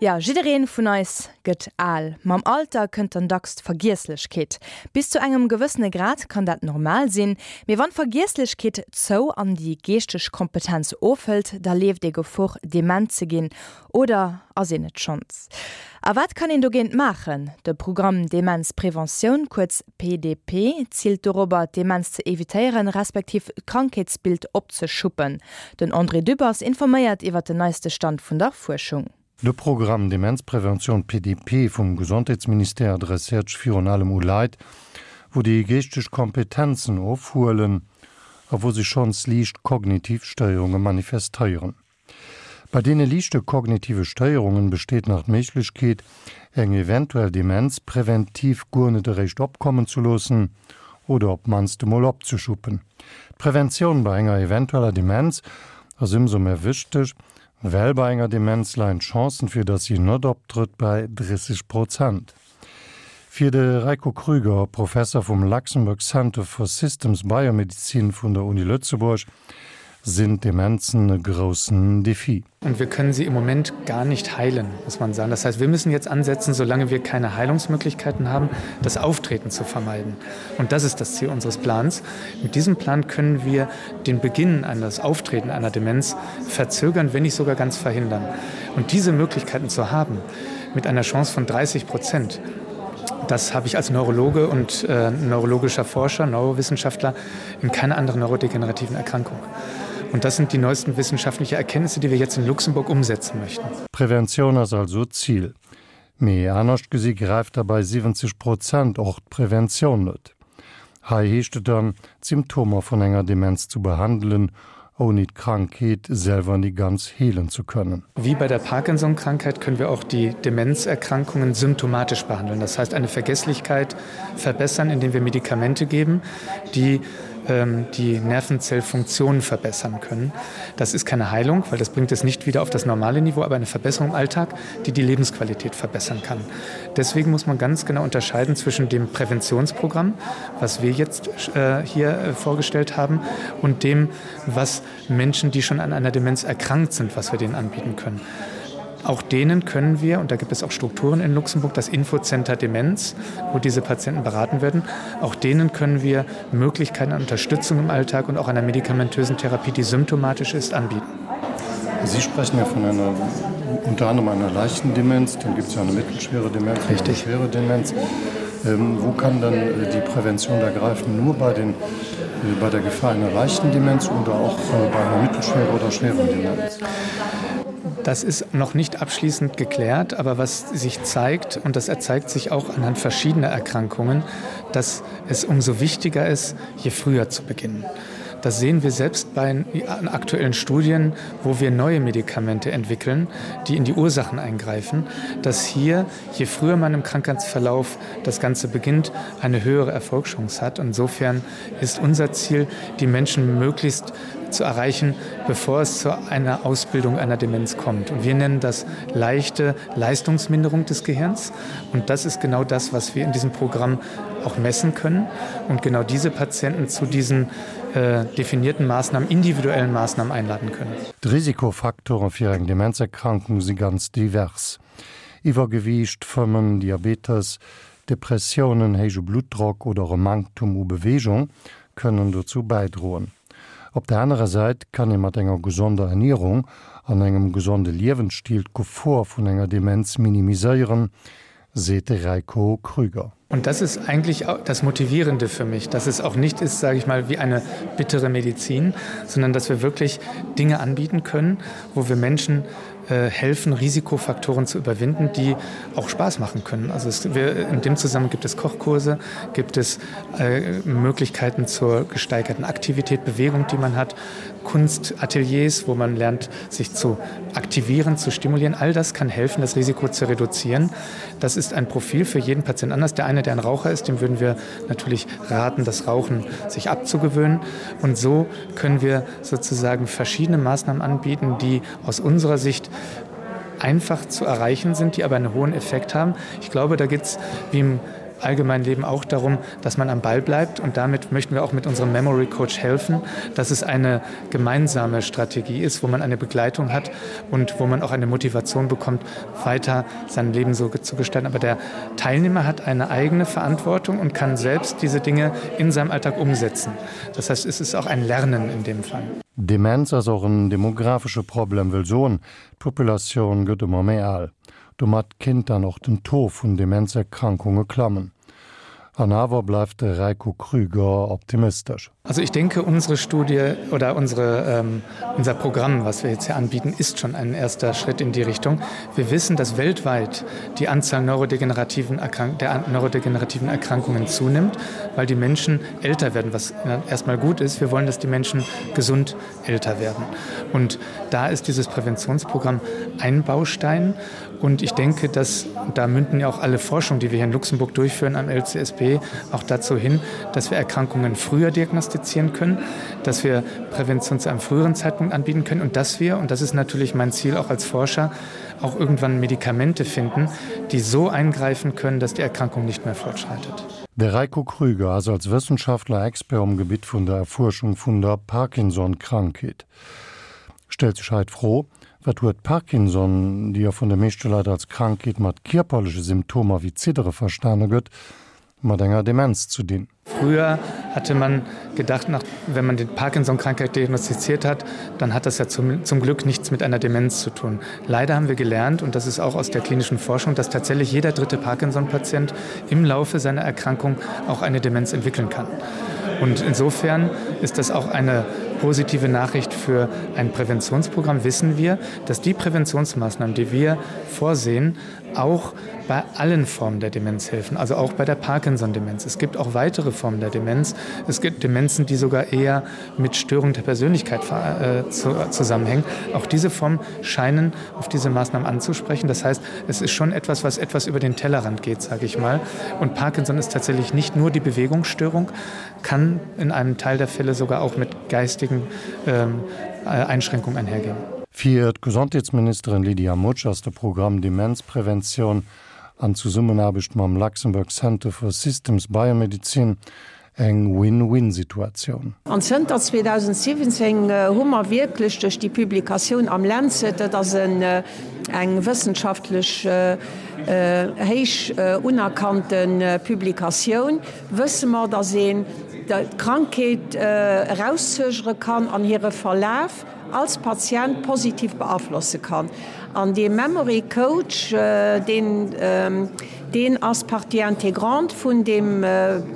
Jo, jiddereen vun eis gëtt al. Mam Alter kënnt dann dacks d'Vergiesslechkeet. Bis zu engem gewëssene Grad kann dat normal sinn, mee wann d'Vergiesslechkeet zou an déi geeschteg Kompetenz ofhëlt, da leeft ee Gefor dement ze ginn. Oder ass een et schonns? A wat kann een dogéint maachen? De Programm Demenzpreventioun, kuerz PDP, ziilt dorobber, d'Demenz ze evitéieren, respektiv d'Krankheetsbild opzeschuppen. Den André Dübbers informéiert iwwer den neiste Stand vun der Fuerschung. De Programm Demenzpreventioun, PDP, vum Gesondheetsministère adresséiert sech virun allem u Leit, wou déi geeschteg Kompetenzen ofhuelen a wou sech schonns liicht kognitiv Stéierunge manifestéieren. Bei deene liichte kognitive Stéierungen besteet nach d'Méiglechkeet, eng eventuell Demenz präventiv guer net eréischt opkommen ze loossen oder op d'mannst emol opzeschuppen. D'Preventioun bei enger eventueller Demenz ass ëmsou méi wichteg, well bei enger Demenz leien d'Chancen, fir dass si net optrëtt, bei 30 Prozent. Fir de Rajko Krüger, Professer vum Luxembourg Center for Systems Biomedicine vun der Uni Lëtzebuerg, sinn d'Demenzen e groussen Defi. Und wir können sie im Moment gar nicht heilen, muss man sagen. Das heißt, wir müssen jetzt ansetzen, solange wir keine Heilungsmöglichkeiten haben, das Auftreten zu vermeiden. Und das ist das Ziel unseres Plans. Mit diesem Plan können wir den Beginn eines Auftreten einer Demenz verzögern, wenn nicht sogar ganz verhindern. Und diese Möglichkeiten zu haben, mit einer Chance von 30 Prozent, das habe ich als Neurologe und äh, neurologischer Forscher, Neurowissenschaftler in keiner anderen neurodegenerativen Erkrankung. Und das sind die neuesten wissenschaftlichen Erkenntnisse, die wir jetzt in Luxemburg umsetzen möchten. Preventioun ass also d'Zil. Mee anescht gesi gräift da bei 70 Prozent och d'Preventioun net. Hei heescht et dann, d'Symptomer vun enger Demenz zu behandelen, ouni d'Krankheet selwer ni ganz heelen zu kënnen. Wie bei der Parkinson-Krankheit können wir auch die Demenzerkrankungen symptomatisch behandeln. Das heißt eine Vergesslichkeit verbessern, indem wir Medikamente geben, die ähm, die Nervenzellfunktion verbessern können. Das ist keine Heilung, weil das bringt es nicht wieder auf das normale Niveau, aber eine Verbesserung im Alltag, die die Lebensqualität verbessern kann. Deswegen muss man ganz genau unterscheiden zwischen dem Präventionsprogramm, was wir jetzt äh, hier äh, vorgestellt haben, und dem, was Menschen, die schon an einer Demenz erkrankt sind, was wir denen anbieten können. Auch denen können wir, und da gibt es auch Strukturen in Luxemburg, das Infocenter Demenz, wo diese Patienten beraten werden, auch denen können wir Möglichkeiten an Unterstützung im Alltag und auch einer medikamentösen Therapie, die symptomatisch ist, anbieten. Sie sprechen ja von einer unter anderem einer leichten Demenz, dann gibt es ja eine mittelschwere Demenz, eine schwere Demenz. Ähm, wo kann dann äh, die Prävention da greifen? Nur bei, den, äh, bei der Gefahr einer leichten Demenz oder auch äh, bei einer mittelschweren oder schweren Demenz? Das ist noch nicht abschließend geklärt, aber was sich zeigt, und das erzeigt sich auch anhand verschiedener Erkrankungen, dass es umso wichtiger ist, je früher zu beginnen. Das sehen wir selbst bei aktuellen Studien, wo wir neue Medikamente entwickeln, die in die Ursachen eingreifen, dass hier, je früher man im Krankheitsverlauf das Ganze beginnt, eine höhere Erfolgschance hat. Insofern ist unser Ziel, die Menschen möglichst zu erreichen, bevor es zu einer Ausbildung einer Demenz kommt. Und wir nennen das leichte Leistungsminderung des Gehirns. Und das ist genau das, was wir in diesem Programm auch messen können und genau diese Patienten zu diesen äh, definierten Maßnahmen, individuellen Maßnahmen einladen können. D'Risikofaktoren fir eng Demenzerkrankung si ganz divers, Iwwergewiicht, Fëmmen, Diabetes, Depressiounen, héije Bluttdrock oder och e Manktum u Beweegung kënnen dozou bäidroen. Op der anerer Säit kann ee mat enger gesonder Ernierung an engem gesonde Liewensstil d'Gefor vun enger Demenz minimiséieren, seet de Rajko Krüger. Und das ist eigentlich das Motivierende für mich, dass es auch nicht ist, sage ich mal, wie eine bittere Medizin, sondern dass wir wirklich Dinge anbieten können, wo wir Menschen äh, helfen, Risikofaktoren zu überwinden, die auch Spaß machen können. Also es, wir, in dem Zusammenhang gibt es Kochkurse, gibt es äh, Möglichkeiten zur gesteigerten Aktivität, Bewegung, die man hat, Kunstateliers, wo man lernt, sich zu aktivieren, zu stimulieren. All das kann helfen, das Risiko zu reduzieren. Das ist ein Profil für jeden Patienten anders. Der eine, der ein Raucher ist, dem würden wir natürlich raten, das Rauchen sich abzugewöhnen. Und so können wir sozusagen verschiedene Maßnahmen anbieten, die aus unserer Sicht einfach zu erreichen sind, die aber einen hohen Effekt haben. Ich glaube, da geht es wie im allgemeinen Leben auch darum, dass man am Ball bleibt und damit möchten wir auch mit unserem Memory Coach helfen, dass es eine gemeinsame Strategie ist, wo man eine Begleitung hat und wo man auch eine Motivation bekommt, weiter sein Leben so zu gestalten. Aber der Teilnehmer hat eine eigene Verantwortung und kann selbst diese Dinge in seinem Alltag umsetzen. Das heißt, es ist auch ein Lernen in dem Fall. Demenz ass och en demografesche Problem, wëll soen, d'Populatioun gëtt ëmmer méi al. Domat kinnt dann och den Taux vun Demenzerkrankunge klammen. An awer bleift de Rajko Krüger optimistesch. Also ich denke, unsere Studie oder unsere, ähm, unser Programm, was wir jetzt hier anbieten, ist schon ein erster Schritt in die Richtung. Wir wissen, dass weltweit die Anzahl neurodegenerativen Erkrank der neurodegenerativen Erkrankungen zunimmt, weil die Menschen älter werden, was erstmal gut ist. Wir wollen, dass die Menschen gesund älter werden. Und da ist dieses Präventionsprogramm ein Baustein. Und ich denke, dass da münden ja auch alle Forschung, die wir hier in Luxemburg durchführen am LCSB, auch dazu hin, dass wir Erkrankungen früher diagnostizieren können, dass wir Prävention zu einem früheren Zeitpunkt anbieten können und dass wir, und das ist natürlich mein Ziel auch als Forscher, auch irgendwann Medikamente finden, die so eingreifen können, dass die Erkrankung nicht mehr fortschreitet. De Rajko Krüger ass als Wëssenschaftler Expert um Gebitt vun der Erfuerschung vun der Parkinson-Krankheet. Stellt sech hei d'Fro, Wat huet Parkinson, déi jo vun de meeschte Leit als Krankheet mat kierperleche Symptomer wéi Ziddere verstane gëtt, mat enger Demenz zu dinn? Früher hatte man gedacht, nach, wenn man die Parkinson-Krankheit diagnostiziert hat, dann hat das ja zum, zum Glück nichts mit einer Demenz zu tun. Leider haben wir gelernt, und das ist auch aus der klinischen Forschung, dass tatsächlich jeder dritte Parkinson-Patient im Laufe seiner Erkrankung auch eine Demenz entwickeln kann. Und insofern ist das auch eine positive Nachricht für ein Präventionsprogramm. Wissen wir, dass die Präventionsmaßnahmen, die wir vorsehen, auch bei allen Formen der Demenz helfen, also auch bei der Parkinson-Demenz. Es gibt auch weitere Formen der Demenz. Es gibt Demenzen, die sogar eher mit Störungen der Persönlichkeit äh, zu, zusammenhängen. Auch diese Formen scheinen auf diese Maßnahmen anzusprechen. Das heißt, es ist schon etwas, was etwas über den Tellerrand geht, sage ich mal. Und Parkinson ist tatsächlich nicht nur die Bewegungsstörung, kann in einem Teil der Fälle sogar auch mit geistigen ähm, äh, Einschränkungen einhergehen. Fir d'Gesondheetsministerin Lydia Mutsch ass de Programm Demenzpreventioun an Zesummenaarbecht mam Luxembourg Center for Systems Biomedizin eng Win-Win-Situatioun. An zënter 2017 hu mer wierklech duerch déi Publikatioun am Lancet, dat ass eng wëssenschaftlech héich unerkannte Publikatioun, wësse mer, datt een d'Krankheet erauszögere kann an hire Verlaf als Patient positiv beaflosse kann. An dee Memory Coach, deen, deen ass Partie intégrante vun deem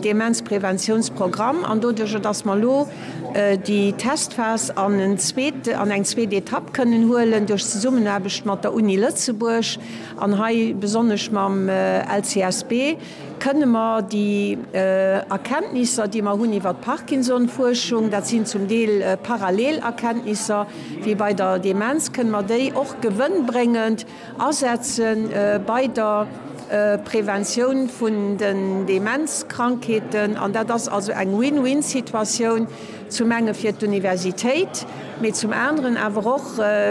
Demenzpräventionsprogramm. An doduerjer, dass mer elo déi Testphas an en zweet, an eng zweet Etapp kënnen huelen duerch d'Zesummenaarbecht mat der Uni Lëtzebuerg an hei besonnesch mam LCSB, Kënne mer déi Erkenntnisser, déi mer hunn iwwert d'Parkinson-Fuerschung, dat sinn zum Deel parallel Erkenntnisser wéi bei der Demenz, kënne mer déi och gewënnbréngend asetze bei der Preventioun vun den Demenzkrankheeten? An dat ass also eng Win-win-Situatioun, zum enge fir d'Universitéit, mee zum aneren awer och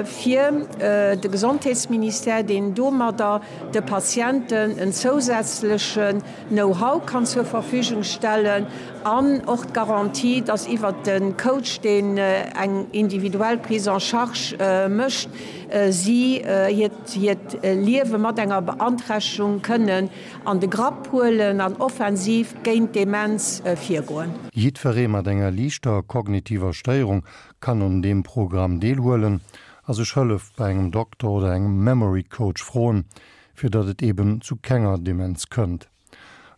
fir de Gesondheetsministère, deen domadder de Patienten en zousätzlechen Know-how kann zur Verfügung stellen an och d'Garantie, dass iwwert de Coach, deen eng individuell Prise en charge mécht, si hiert Liewe mat enger Beanträchtegung kënnen an de Grapp huelen an offensiv géint d'Demenz virgoen. Jiddweree mat enger liichter kognitiver Stéierung kann un deem Programm deelhuelen a sech Hëllef bei engem Dokter oder engem Memory Coach froen, fir datt et eben zu kenger Demenz kënnt.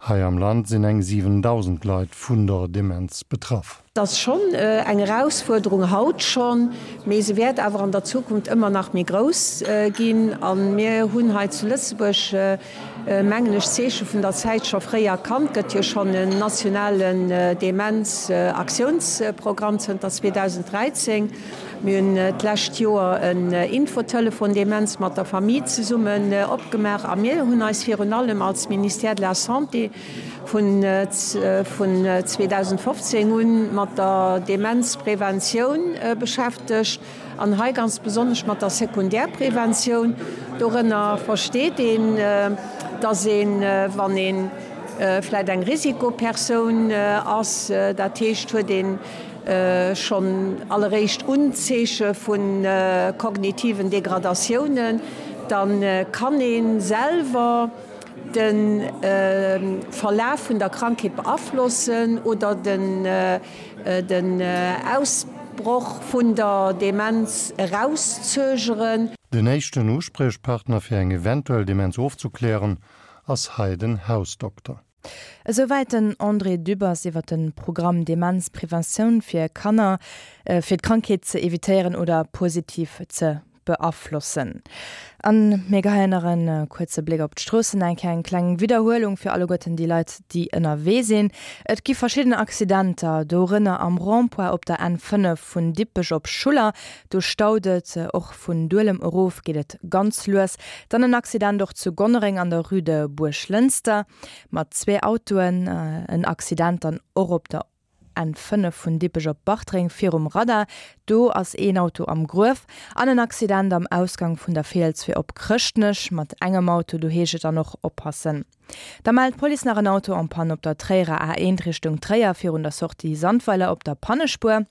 Hei am Land sinn eng 7.000 Leit vun der Demenz betraff. Et ass schonn eng Erausfuerderung haut schonn, mee se wäert awer an der Zukunft ëmmer nach méi grouss ginn. A mir hunn hei zu Lëtzebuerg, mengen ech, d'Zeeche vun der Zäit scho fréi erkannt. Et gëtt jo schonn en nationalen Demenz-Aktiounsprogramm zënter 2013. Mir hunn d'lescht Joer en Infotelefon Demenz mat der Famille zesummen opgemaach a mir hunn eis virun allem als Ministère de la Santé vun 2015 un mat der Demenzpreventioun beschäftegt an hei ganz besonnesch mat der Sekundärpreventioun. Dorënner versteet een, dass een, wann een. vläit eng Risikopersoun ass, dat heescht huet een schonn alleréischt Unzeeche vu kognitiven Degradatiounen, da kann ee selwer de Verlaf vun der Krankheet beaflossen oder den Ausbroch vun der Demenz erauszögeren. Den éischten Uspriechpartner fir eng eventuell Demenz ofzeklären ass hei den Hausdokter. Esouwäit den André Dübbers iwwer de Programm Demenzpreventioun fir Kanner, fir d'Krankheet ze evitéieren oder positiv ze beaflossen. An mir geheien nach en kuerze Bléck op d'Stroossen, eng Kéier eng kleng Widderhuelung fir alleguerten déi Leit, déi ënnerwee sinn. Et gi verschidden Accidenter, dorënner am Rond-point op der N5 vun Dippech op Schuller, do staut et. Och vun Duelem erof geet et ganz lues. Dann en Accident och zu Gonnereng an der Rue de Buerglënster mat zwee Autoen. En Accident dann och op der N5 vun Dippech op Bartreng virum Radar, do ass een Auto am Gruef. An en Accident am Ausgang vun der Fiels fir op Chrëschtnech mat engem Auto, do heescht et dann och oppassen. Da mellt d'Police nach en Auto en panne op der Tréierer A1 Richtung Tréier virun der Sortie Sandweiler op der Pannespuer.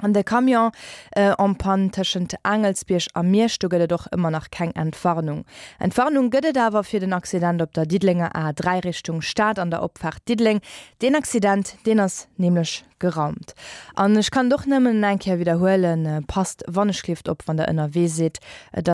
An de Camion en panne tëschent Aangelsbierg a Miersch, do gëtt et och ëmmer nach keng Entwarnung. Entwarnung gëtt et awer fir den Accident op der Diddelenger A3 Richtung Stad an der Opfaart Diddeleng. Deen Accident, deen ass nämlech geraumt. An ech kann et och nëmmen eng Kéier widderhuelen, Passt wannechgelift op, wann der ënnerwee sidd. Et.